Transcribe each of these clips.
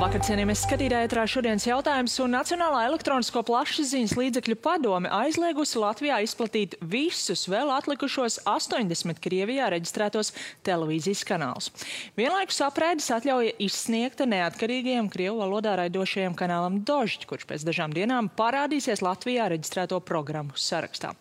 Labvakar, cienījamies skatītāji, ētrā šodienas jautājums, un Nacionālā elektronisko plašsaziņas līdzekļu padome aizliegusi Latvijā izplatīt visus vēl atlikušos 80 Krievijā reģistrētos televīzijas kanālus. Vienlaikus apraides atļauja izsniegta neatkarīgajam Krievu valodā raidošajam kanālam Dožd, kurš pēc dažām dienām parādīsies Latvijā reģistrēto programmu sarakstā.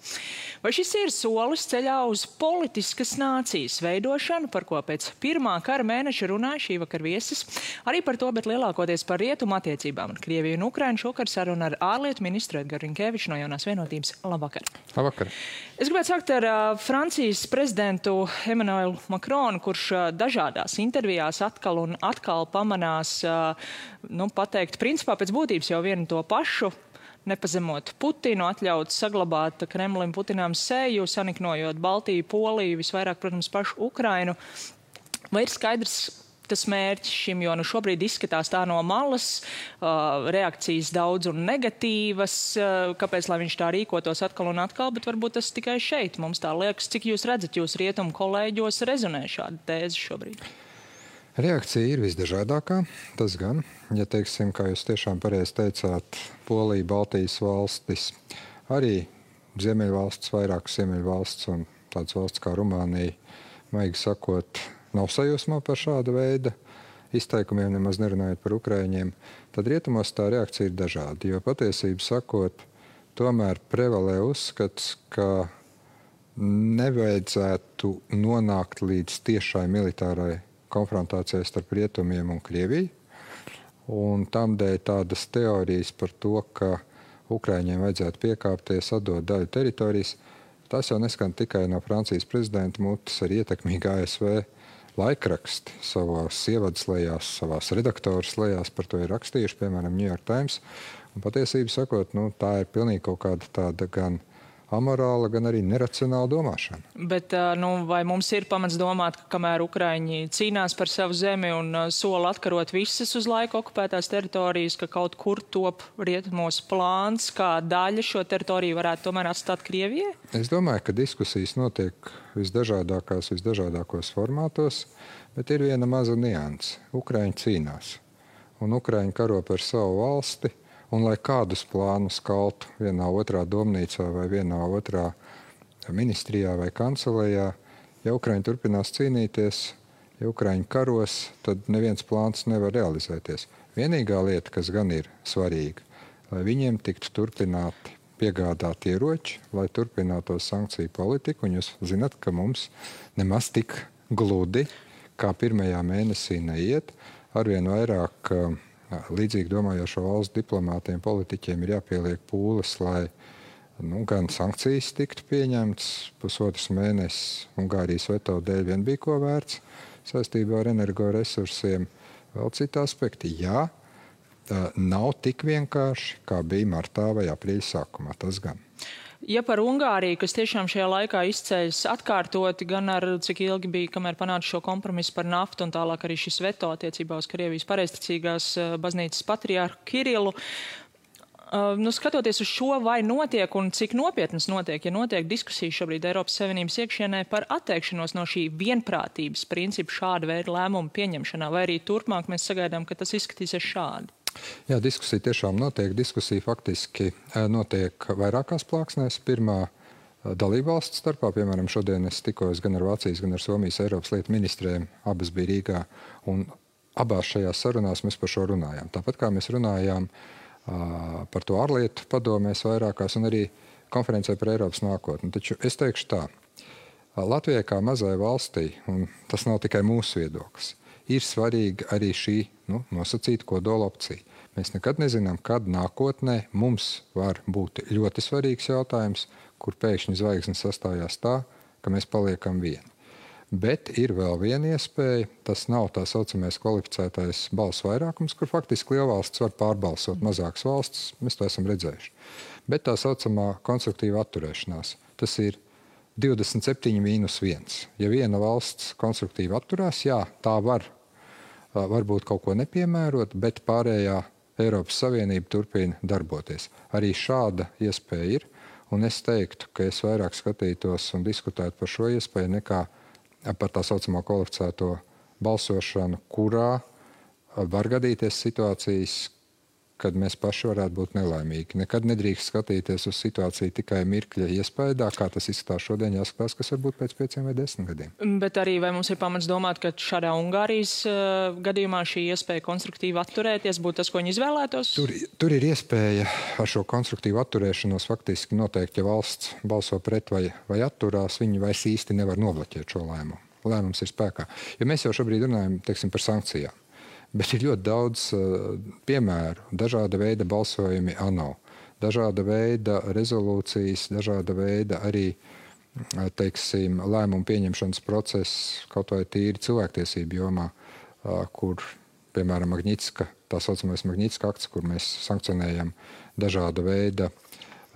Vai šis ir solis ceļā uz politiskas nācijas veidošanu, par ko pēc pirmā kara mēneša runāja šī vakar viesis? Arī par to, bet lielākoties par rietumu attiecībām ar Krieviju un Ukrainu šokar saruna ar ārlietu ministru Edgaru Rinkeviču no Jaunās vienotības. Labvakar. Labvakar. Es gribētu sākt ar Francijas prezidentu Emmanuelu Macronu, kurš dažādās intervijās atkal un atkal pamanās, pateikt, principā pēc būtības jau vienu to pašu, nepazemot Putinu, atļaut saglabāt Kremlim Putinām seju, saniknojot Baltiju, Poliju, visvairāk, protams, pašu Ukrainu. Vai ir skaidrs tas mērķis šim, jo šobrīd izskatās tā no malas, reakcijas daudz un negatīvas, kāpēc, lai viņš tā rīkotos atkal un atkal, bet varbūt tas tikai šeit mums tā liekas. Cik jūs redzat, jūs rietumu kolēģos rezonē šāda tēze šobrīd? Reakcija ir visdažādākā, tas gan. Ja teiksim, kā jūs tiešām pareizi teicāt, Polija, Baltijas valstis, arī Ziemeļvalsts, vairākas Ziemeļvalsts un tādas valsts kā Rumānija, maigi sakot, nav sajūsmā par šāda veida izteikumiem, nemaz nerunājot par Ukraiņiem, tad rietumos tā reakcija ir dažāda. Jo patiesību sakot, tomēr prevalē uzskats, ka nevajadzētu nonākt līdz tiešai militārai konfrontācijai starp rietumiem un Krieviju. Un tamdēļ tādas teorijas par to, ka Ukraiņiem vajadzētu piekāpties, atdot daļu teritorijas, tas jau neskan tikai no Francijas prezidenta mutes, arī ietekmīgi ASV laikraksti savās ievadslējās, savās redaktoras lejās par to ir rakstījuši, piemēram, New York Times. Un patiesību sakot, tā ir pilnīgi kaut kāda tāda gan amorāla, gan arī neracionāla domāšana. Bet vai mums ir pamats domāt, ka kamēr Ukraiņi cīnās par savu zemi un sola atkarot visas uz laiku okupētās teritorijas, ka kaut kur top rietumos plāns, kā daļa šo teritoriju varētu tomēr atstāt Krievijai? Es domāju, ka diskusijas notiek visdažādākos formātos, bet ir viena maza nianse. Ukraiņi cīnās, un Ukraiņi karo par savu valsti, un lai kādus plānus kaltu vienā otrā domnīcā vai vienā otrā ministrijā vai kancelējā, ja Ukraiņi turpinās cīnīties, ja Ukraiņi karos, tad neviens plāns nevar realizēties. Vienīgā lieta, kas gan ir svarīga, lai viņiem tiktu turpināti piegādāt ieroči, lai turpinātos sankciju politiku, un jūs zinat, ka mums nemaz tik gludi, kā pirmajā mēnesī neiet, arvien vairāk līdzīgi domājošo valstu diplomātiem, politiķiem ir jāpieliek pūles, lai gan sankcijas tiktu pieņemtas. Pusotrs mēnesis Ungārijas veto dēļ vien bija ko vērts saistībā ar energoresursiem. Vēl citi aspekti. Jā, nav tik vienkārši, kā bija martā vai aprīļa sākumā. Tas gan. Ja par Ungāriju, kas tiešām šajā laikā izceļas atkārtoti, gan ar cik ilgi bija, kamēr panāca šo kompromisu par naftu un tālāk arī šis veto attiecībā uz Krievijas pareizticīgās baznīcas patriārhu Kirilu. Skatoties uz šo, vai notiek un cik nopietnas notiek, ja notiek diskusijas šobrīd Eiropas Savienības iekšienē par atteikšanos no šī vienprātības principu šāda veida lēmumu pieņemšanā, vai arī turpmāk mēs sagaidām, ka tas izskatīsies šādi? Jā, diskusija tiešām notiek. Diskusija faktiski notiek vairākās plāksnēs. Pirmā dalībvalstu starpā, piemēram, šodien es tikos gan ar Vācijas, gan ar Somijas Eiropas lietu ministriem, abas bija Rīgā, un abās šajās sarunās mēs par šo runājām. Tāpat kā mēs runājām par to ārlietu padomēs vairākās un arī konferencē par Eiropas nākotni. Taču es teikšu tā, Latvijai kā mazai valstī, un tas nav tikai mūsu viedoklis, ir svarīga arī šī nosacīta kodola opcija. Mēs nekad nezinām, kad nākotnē mums var būt ļoti svarīgs jautājums, kur pēkšņi zvaigznes sastājās tā, ka mēs paliekam vieni. Bet ir vēl viena iespēja, tas nav tā saucamais kvalificētais balsu vairākums, kur faktiski lielvalsts var pārbalsot mazākas valsts, mēs to esam redzējuši. Bet tā saucamā konstruktīva atturēšanās, tas ir 27-1. Ja viena valsts konstruktīvi atturās, jā, tā varbūt kaut ko nepiemērot, bet pārējā Eiropas Savienība turpina darboties. Arī šāda iespēja ir, un es teiktu, ka es vairāk skatītos un diskutētu par šo iespēju nekā par tā saucamā kvalificēto balsošanu, kurā var gadīties situācijas, kad mēs paši varētu būt nelaimīgi. Nekad nedrīkst skatīties uz situāciju tikai mirkļa iespējā, kā tas izskatās šodien, jāskatās, kas var būt pēc 5 vai 10 gadiem. Bet arī vai mums ir pamats domāt, ka šādā Ungārijas gadījumā šī iespēja konstruktīvi atturēties būtu tas, ko viņi izvēlētos? Tur ir iespēja ar šo konstruktīvu atturēšanos faktiski noteikt, ja valsts balso pret vai atturās, viņi vairs īsti nevar nobloķēt šo lēmumu. Lēmums ir spēkā. Jo mēs jau šobrīd runājam, teiksim, par sankcijām. Bet ir ļoti daudz piemēru, dažāda veida balsojumi ANO, dažāda veida rezolūcijas, dažāda veida arī, teiksim, lēmumu pieņemšanas process, kaut vai tīri cilvēktiesību jomā, kur, piemēram, Magnitska, tā saucamais Magnitska akts, kur mēs sankcionējam dažāda veida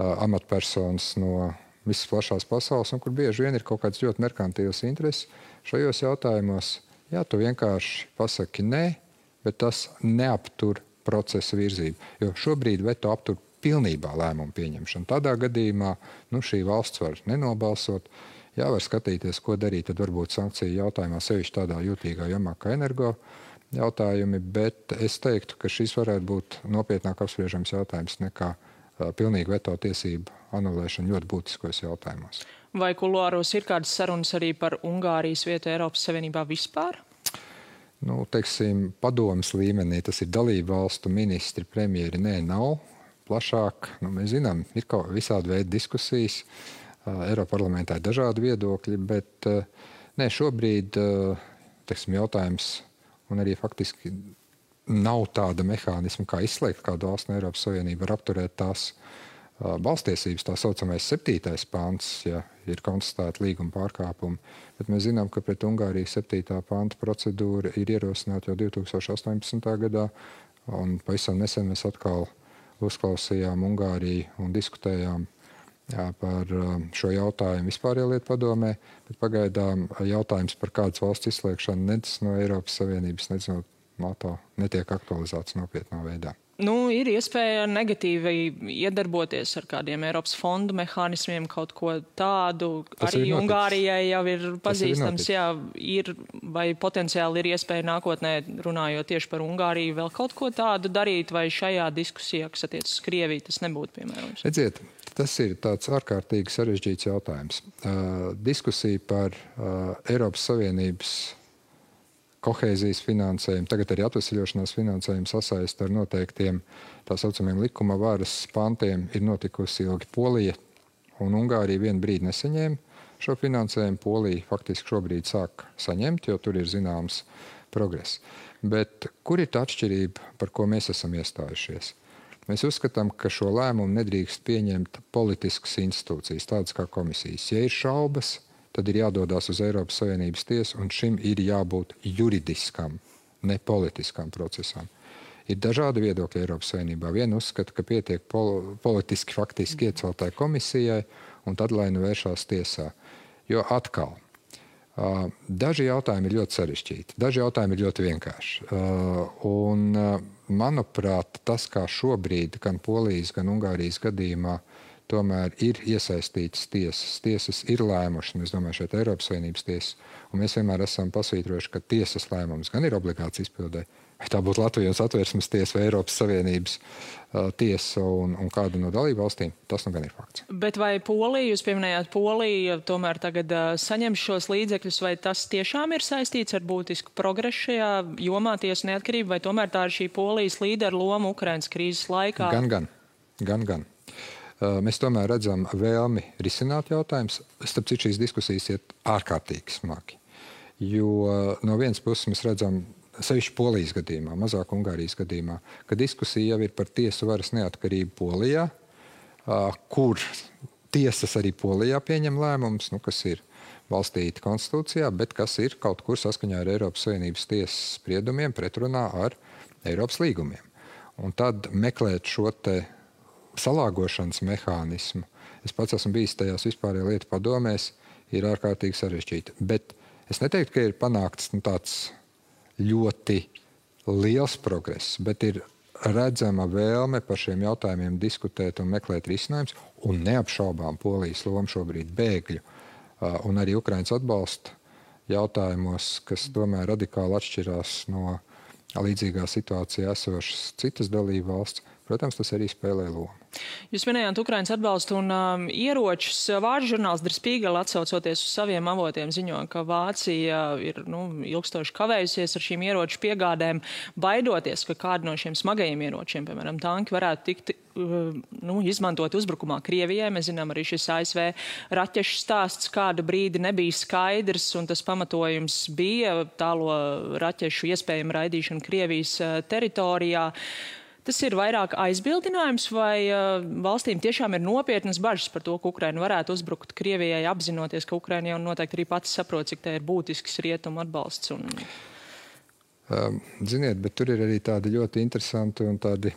amatpersonas no visas plašās pasaules, un kur bieži vien ir kaut kāds ļoti merkantīvs intereses šajos jautājumos. Jā, tu vienkārši pasaki nē, bet tas neaptur procesa virzību. Jo šobrīd veto aptur pilnībā lēmumu pieņemšanu. Tādā gadījumā šī valsts var nenobalsot. Jā, var skatīties, ko darīt, tad varbūt sankciju jautājumā, sevišķi tādā jūtīgā jomā kā energo jautājumi, bet es teiktu, ka šis varētu būt nopietnāk apspriežams jautājums nekā pilnīgi veto tiesību anulēšana ļoti būtiskos jautājumos. Vai kuluāros ir kādas sarunas arī par Ungārijas vietu Eiropas Savienībā vispār? Teiksim, padomas līmenī, tas ir dalību valstu ministri, premjeri, nav plašāk. Mēs zinām, ir kaut visādi veidi diskusijas, Eiroparlamentā ir dažādi viedokļi, bet šobrīd, teiksim, jautājums, un arī faktiski nav tāda mehānisma, kā izslēgt kādu valstu no Eiropas Savienību, var apturēt tās balstiesības, tā saucamais 7. pants, ja ir konstatēta līguma pārkāpumi. Bet mēs zinām, ka pret Ungāriju 7. panta procedūra ir ierosināta jau 2018. gadā, un pavisam nesen mēs atkal uzklausījām Ungāriju un diskutējām par šo jautājumu vispārējā lietu padomē, bet pagaidām jautājums par kādas valsts izslēgšanu nec no Eiropas Savienības, nec no NATO netiek aktualizēts nopietnā veidā. Ir iespēja negatīvi iedarboties ar kādiem Eiropas fondu mehānismiem, kaut ko tādu. Arī Ungārijai jau ir pazīstams, ir vai potenciāli ir iespēja nākotnē, runājot tieši par Ungāriju, vēl kaut ko tādu darīt, vai šajā diskusijā, kas attiecas uz Krieviju, tas nebūtu piemērojams? Redziet, tas ir tāds ārkārtīgi sarežģīts jautājums. Diskusija par Eiropas Savienības kohēzijas finansējumu, tagad arī atvesļošanās finansējumu sasaist ar noteiktiem tā saucamiem likuma varas pantiem ir notikusi ilgi. Polija un Ungārija vienu brīdi nesaņēma šo finansējumu. Polija faktiski šobrīd sāk saņemt, jo tur ir zināms progress. Bet kur ir tā atšķirība, par ko mēs esam iestājušies? Mēs uzskatām, ka šo lēmumu nedrīkst pieņemt politiskas institūcijas, tādas kā komisijas. Ja ir šaubas, tad ir jādodas uz Eiropas Savienības tiesu, un šim ir jābūt juridiskam, ne politiskam procesam. Ir dažādi viedokļi Eiropas Savienībā. Viena uzskata, ka pietiek politiski faktiski ieceltai komisijai, un tad lai nu vēršās tiesā. Jo atkal, daži jautājumi ir ļoti sarežģīti, daži jautājumi ir ļoti vienkārši. Manuprāt, tas, kā šobrīd gan Polijas, gan Ungārijas gadījumā tomēr ir iesaistītas tiesas. Tiesas ir lēmušas, es domāju, šeit Eiropas Savienības tiesas, un mēs vienmēr esam pasvītrojuši, ka tiesas lēmums gan ir obligāts izpildē. Vai tā būtu Latvijas Satversmes tiesa vai Eiropas Savienības tiesa un kāda no dalību valstīm, tas gan ir fakts. Bet vai Polija, jūs pieminējāt Poliju, tomēr tagad saņem šos līdzekļus, vai tas tiešām ir saistīts ar būtisku progresu šajā jomā tiesu neatkarību, vai tomēr tā ir šī Polijas līdera loma Ukrainas krīzes laikā? Gan. Mēs tomēr redzam vēlmi risināt jautājumus. Starp citu, šīs diskusijas iet ārkārtīgi smagi. Jo no vienas puses mēs redzam, sevišķi Polijas gadījumā, mazāk Ungārijas gadījumā, ka diskusija jau ir par tiesu varas neatkarību Polijā, kur tiesas arī Polijā pieņem lēmumus, kas ir balstīti konstitūcijā, bet kas ir kaut kur saskaņā ar Eiropas Savienības tiesas spriedumiem pretrunā ar Eiropas līgumiem. Un tad meklēt šo te salāgošanas mehānismu, es pats esmu bijis tajās vispārējā lietu padomēs, ir ārkārtīgi sarežģīti. Bet es neteiktu, ka ir panākts tāds ļoti liels progress, bet ir redzama vēlme par šiem jautājumiem diskutēt un meklēt risinājumus, un neapšaubām Polijas loma šobrīd bēgļu un arī Ukrainas atbalsta jautājumos, kas tomēr radikāli atšķirās no līdzīgā situācijā esošas citas dalību valsts, protams, tas arī spēlē lomu. Jūs minējāt Ukrainas atbalstu un ieročus. Vācu žurnāls Der Spiegel, atsaucoties uz saviem avotiem, ziņo, ka Vācija ir ilgstoši kavējusies ar šīm ieroču piegādēm, baidoties, ka kādi no šiem smagajiem ieročiem, piemēram, tanki, varētu tikt izmantot uzbrukumā Krievijai. Mēs zinām, arī šis ASV raķešu stāsts kādu brīdi nebija skaidrs, un tas pamatojums bija tālo raķešu iespējama raidīšana Krievijas teritorijā. Tas ir vairāk aizbildinājums, vai valstīm tiešām ir nopietnas bažas par to, ka Ukraina varētu uzbrukt Krievijai, apzinoties, ka Ukraina jau noteikti arī pati saprot, cik tā ir būtisks rietumu atbalsts? Ziniet, bet tur ir arī tādi ļoti interesanti un tādi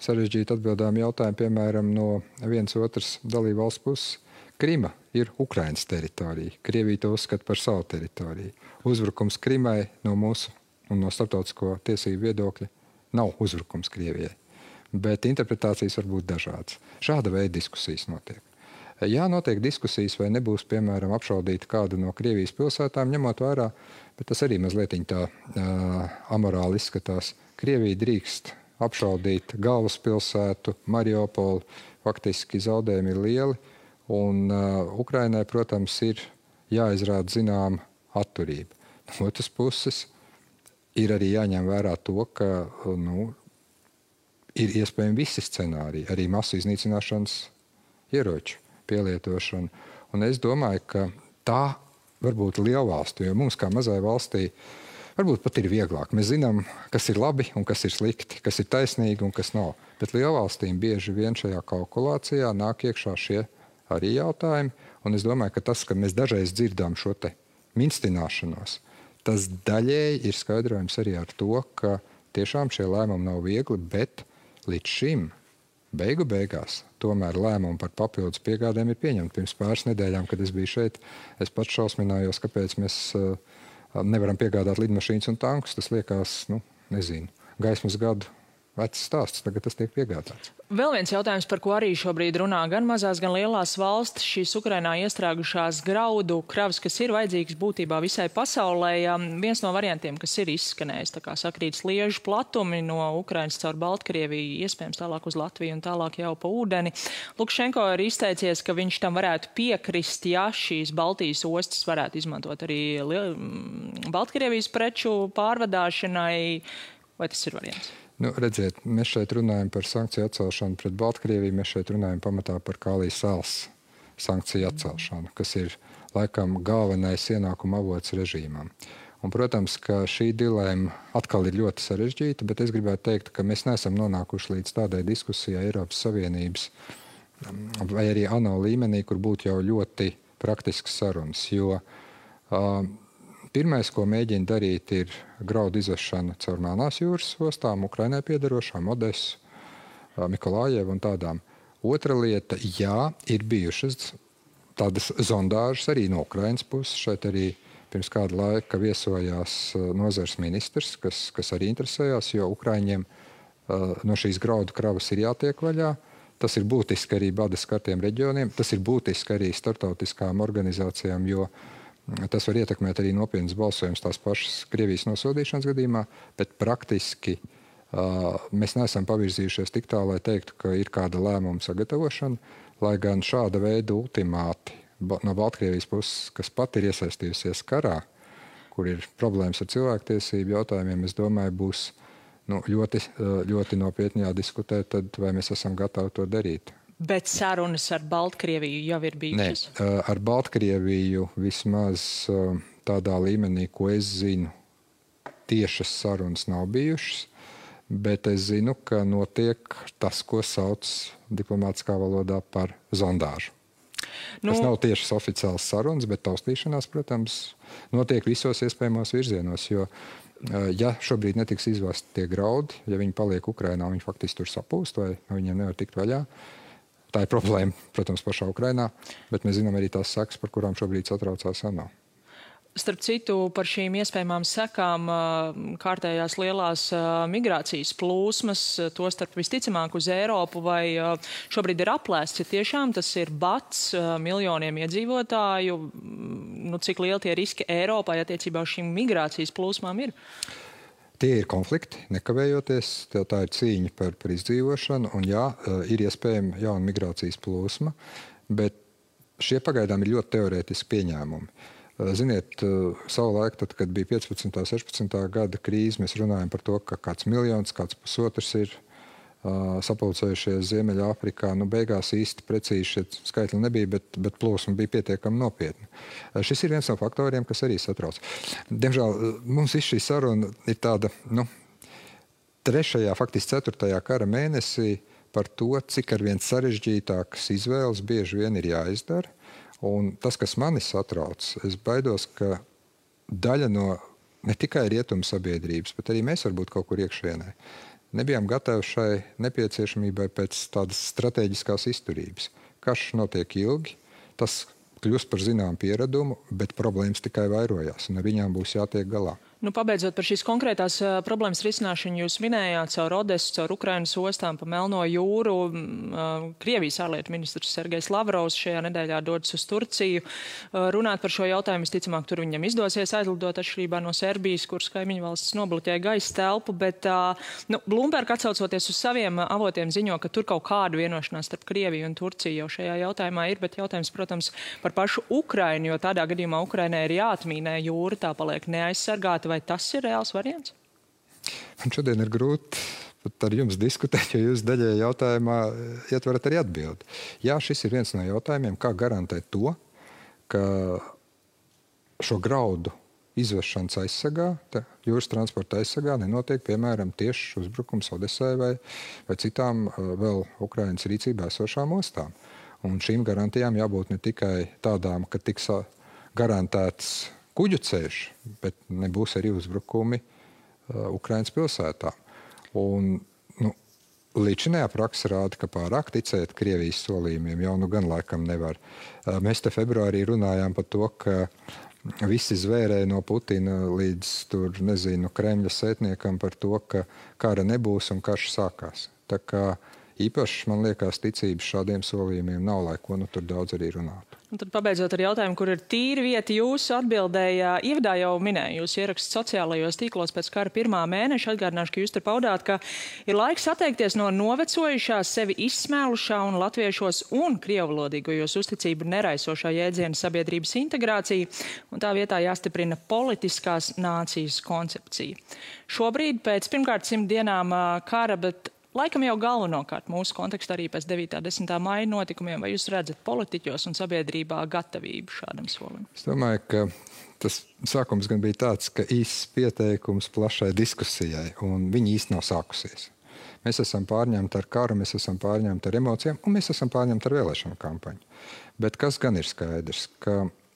sarežģīti atbildāmi jautājumi, piemēram, no vienas otras dalību valsts puses. Krima ir Ukrainas teritorija. Krievija to uzskata par savu teritoriju. Uzbrukums Krimai no mūsu un no starptautisko tiesību viedokļa nav uzbrukums Krievijai, bet interpretācijas var būt dažādas. Šāda veida diskusijas notiek. Jā, notiek diskusijas, vai nebūs, piemēram, apšaudīta kāda no Krievijas pilsētām, ņemot vērā, bet tas arī mazliet tā amorāli izskatās. Krievija drīkst apšaudīt galvaspilsētu, Mariupolu, faktiski zaudējumi ir lieli, un Ukrainai, protams, ir jāizrāda zināma atturība. No otras puses, ir arī jāņem vērā to, ka ir iespējami visi scenāriji, arī masu iznīcināšanas ieroču pielietošana. Un es domāju, ka tā var būt lielvalstu, jo mums kā mazai valstī varbūt pat ir vieglāk. Mēs zinām, kas ir labi un kas ir slikti, kas ir taisnīgi un kas nav. Bet lielvalstīm bieži vien šajā kalkulācijā nāk iekšā šie arī jautājumi. Un es domāju, ka tas, ka mēs dažreiz dzirdām šo te minstināšanos, tas daļēji ir skaidrojums arī ar to, ka tiešām šie lēmumi nav viegli, bet līdz šim beigās tomēr lēmumi par papildus piegādēm ir pieņemti. Pirms pāris nedēļām, kad es biju šeit, es pats šausminājos, kāpēc mēs nevaram piegādāt lidmašīnas un tankus. Tas liekas, gaismas gadu vecs stāsts, tagad tas tiek piegādāts. Vēl viens jautājums, par ko arī šobrīd runā gan mazās, gan lielās valstis, šīs Ukrainā iestrēgušās graudu kravas, kas ir vajadzīgas būtībā visai pasaulē. Viens no variantiem, kas ir izskanējis, tā kā sakrīt sliežu platumi no Ukrainas caur Baltkrieviju, iespējams tālāk uz Latviju un tālāk jau pa ūdeni. Lukašenko ir izteicies, ka viņš tam varētu piekrist, ja šīs Baltijas ostas varētu izmantot arī Baltkrievijas preču pārvadāšanai. Vai tas ir variants? Redziet, mēs šeit runājam par sankciju atcelšanu pret Baltkrieviju, mēs šeit runājam pamatā par Kālijas salas sankciju atcelšanu, kas ir laikam galvenais ienākuma avots režīmam. Un, protams, ka šī dilēma atkal ir ļoti sarežģīta, bet es gribētu teikt, ka mēs neesam nonākuši līdz tādai diskusijai Eiropas Savienības vai arī ANO līmenī, kur būtu jau ļoti praktisks sarunas, jo pirmais, ko mēģina darīt, ir graudu izvešana caur Melnās jūras ostām, Ukrainai piedarošām, Odesu, Mikolājevu un tādām. Otra lieta, jā, ir bijušas tādas zondāžas arī no Ukrainas puses. Šeit arī pirms kāda laika viesojās nozares ministrs, kas arī interesējās, jo Ukraiņiem no šīs graudu kravas ir jātiek vaļā. Tas ir būtiski arī bada skartiem reģioniem, tas ir būtiski arī startautiskām organizācijām, jo tas var ietekmēt arī nopietnas balsojums tās pašas Krievijas nosodīšanas gadījumā, bet praktiski mēs neesam pavirzījušies tik tālu, lai teiktu, ka ir kāda lēmuma sagatavošana, lai gan šāda veida ultimāti no Baltkrievijas puses, kas pat ir iesaistījusies karā, kur ir problēmas ar cilvēktiesību jautājumiem, es domāju, būs ļoti nopietni jādiskutē, tad vai mēs esam gatavi to darīt. Bet sarunas ar Baltkrieviju jau ir bijušas? Nē, ar Baltkrieviju vismaz tādā līmenī, ko es zinu, tiešas sarunas nav bijušas, bet es zinu, ka notiek tas, ko sauc diplomātiskā valodā par zondāžu. Tas nav tiešas oficiāls sarunas, bet taustīšanās, protams, notiek visos iespējamos virzienos, jo ja šobrīd netiks izvesti tie graudi, ja viņi paliek Ukrainā, viņi faktiski tur sapūst vai viņiem nevar tikt vaļā. Tā ir problēma, protams, pašā Ukrainā, bet mēs zinām arī tās sekas, par kurām šobrīd satraucās ANO. Starp citu, par šīm iespējamām sekām kārtējās lielās migrācijas plūsmas, tostarp visticamāk uz Eiropu, vai šobrīd ir aplēsts, ja tiešām tas ir bats miljoniem iedzīvotāju, cik lieli tie riski Eiropai attiecībā uz šīm migrācijas plūsmām ir? Tie ir konflikti, nekavējoties, tā ir cīņa par izdzīvošanu, un jā, ir iespējama jauna migrācijas plūsma, bet šie pagaidām ir ļoti teorētiski pieņēmumi. Ziniet, savulaik, tad, kad bija 15. un 16. gada krīze, mēs runājam par to, ka kāds miljons, kāds pusotrs ir sapulcējušies Ziemeļāfrikā. Beigās īsti precīzi šie skaitļi nebija, bet plūsma bija pietiekami nopietna. Šis ir viens no faktoriem, kas arī satrauc. Diemžēl mums šī saruna ir tāda, 3., faktiski 4. kara mēnesī par to, cik arvien sarežģītākas izvēles bieži vien ir jāizdara. Un tas, kas mani satrauc, es baidos, ka daļa no ne tikai rietumu sabiedrības, bet arī mēs varbūt kaut kur iekšienē nebijām gatavi šai nepieciešamībai pēc tādas strateģiskās izturības. Karš notiek ilgi, tas kļūst par zināmu pieradumu, bet problēmas tikai vairojās, un ar viņām būs jātiek galā. Pabeidzot par šīs konkrētās problēmas risināšanu, jūs minējāt caur Odesu, caur Ukrainas ostām pa Melno jūru. Krievijas ārlietu ministrs Sergejs Lavrovs šajā nedēļā dodas uz Turciju. Runāt par šo jautājumu, visticamāk, tur viņam izdosies aizlidot atšķirībā no Serbijas, kuras kaimiņu valsts nobloķēja gaisa telpu, bet Bloomberg atsaucoties uz saviem avotiem ziņo, ka tur kaut kādu vienošanās starp Krieviju un Turciju jau šajā jautājumā ir, bet jautājums, protams, par pašu Ukrainu, jo tādā gadījumā Ukrainai ir jāatmīnē jūra, tā paliek neaizsargāta. Vai tas ir reāls variants? Man šodien ir grūti pat ar jums diskutēt, jo jūs daļai jautājumā ietverat arī atbildi. Jā, šis ir viens no jautājumiem, kā garantēt to, ka šo graudu izvešanas aizsargā, jūras transporta aizsargā nenotiek, piemēram, tieši uzbrukums Odesai vai citām vēl Ukrainas rīcībā esošām ostām. Un šīm garantijām jābūt ne tikai tādām, ka tiks garantēts kuģu ceļš, bet nebūs arī uzbrukumi Ukrainas pilsētā. Un, līdzinājā praksa rāda, ka pārāk ticēt Krievijas solījumiem jau gan laikam nevar. Mēs te februārī runājām par to, ka visi zvērēja no Putina līdz Kremļa sētniekam par to, ka kara nebūs un karš sākās. Tā kā īpaši, man liekas, ticības šādiem solījumiem nav, lai ko tur daudz arī runātu. Un tad pabeidzot ar jautājumu, kur ir tīra vieta jūsu atbildēja, ievadā jau minēju, jūs ieraksts sociālajos tīklos pēc kara 1. mēneša. Atgādināšu, ka jūs tur paudāt, ka ir laiks atteikties no novecojušās, sevi izsmēlušā un latviešos un krievvalodīgajos uzticību neraisošā jēdziena sabiedrības integrācija, un tā vietā jāstiprina politiskās nācijas koncepcija. Šobrīd pēc pirmkārt 100 dienām kara, bet laikam jau galvenokārt mūsu kontekstā arī pēc 9. un 10. maija notikumiem, vai jūs redzat politiķos un sabiedrībā gatavību šādam solim? Es domāju, ka tas sākums gan bija tāds, ka īsts pieteikums plašai diskusijai, un viņi īsti nav sākusies. Mēs esam pārņemti ar karu, mēs esam pārņemti ar emocijām, un mēs esam pārņemti ar vēlēšanu kampaņu. Bet kas gan ir skaidrs?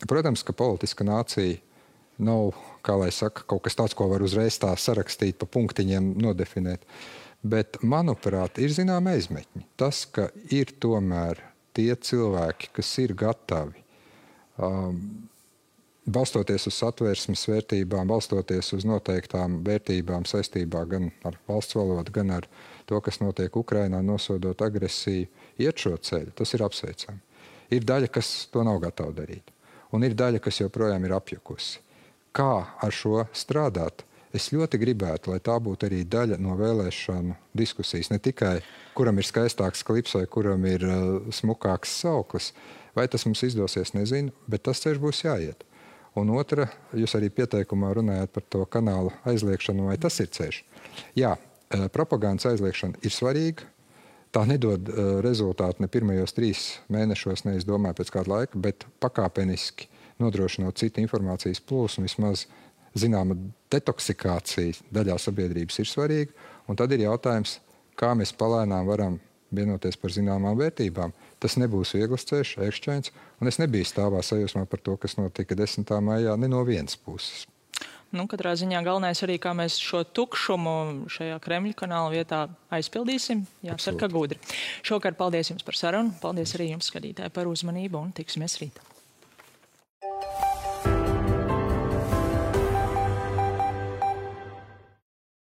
Protams, ka politiska nācija nav, kā lai saka, kaut kas tāds, ko var uzreiz tā sarakstīt, pa punktiņiem nodefinēt. Bet, manuprāt, ir zināma aizmetņi. Tas, ka ir tomēr tie cilvēki, kas ir gatavi, balstoties uz satversmes vērtībām, balstoties uz noteiktām vērtībām saistībā gan ar valsts valodu, gan ar to, kas notiek Ukrainā, nosodot agresiju, iet šo ceļu, tas ir apsveicami. Ir daļa, kas to nav gatava darīt. Un ir daļa, kas joprojām ir apjukusi. Kā ar šo strādāt? Es ļoti gribētu, lai tā būtu arī daļa no vēlēšanu diskusijas. Ne tikai, kuram ir skaistāks klips vai kuram ir smukāks sauklis. Vai tas mums izdosies, nezinu, bet tas ceļš būs jāiet. Un otra, jūs arī pieteikumā runājāt par to kanālu aizliekšanu, vai tas ir ceļš. Jā, propagandas aizliekšana ir svarīga. Tā nedod rezultātu ne pirmajos 3 mēnešos, ne es domāju pēc kāda laika, bet pakāpeniski nodrošinot citu informācijas plūsmu, vismaz zināma detoksikācija daļā sabiedrības ir svarīga, un tad ir jautājums, kā mēs palēnām varam vienoties par zināmām vērtībām. Tas nebūs viegls ceļš, ērkšķains, un es nebiju stāvā sajūsmā par to, kas notika 10. maijā, ne no vienas puses. Katrā ziņā galvenais arī, kā mēs šo tukšumu šajā Kremļa kanāla vietā aizpildīsim. Jācer, ka gudri. Šovakar paldies jums par sarunu, paldies arī jums, skatītāji, par uzmanību, un tiksimies rīt.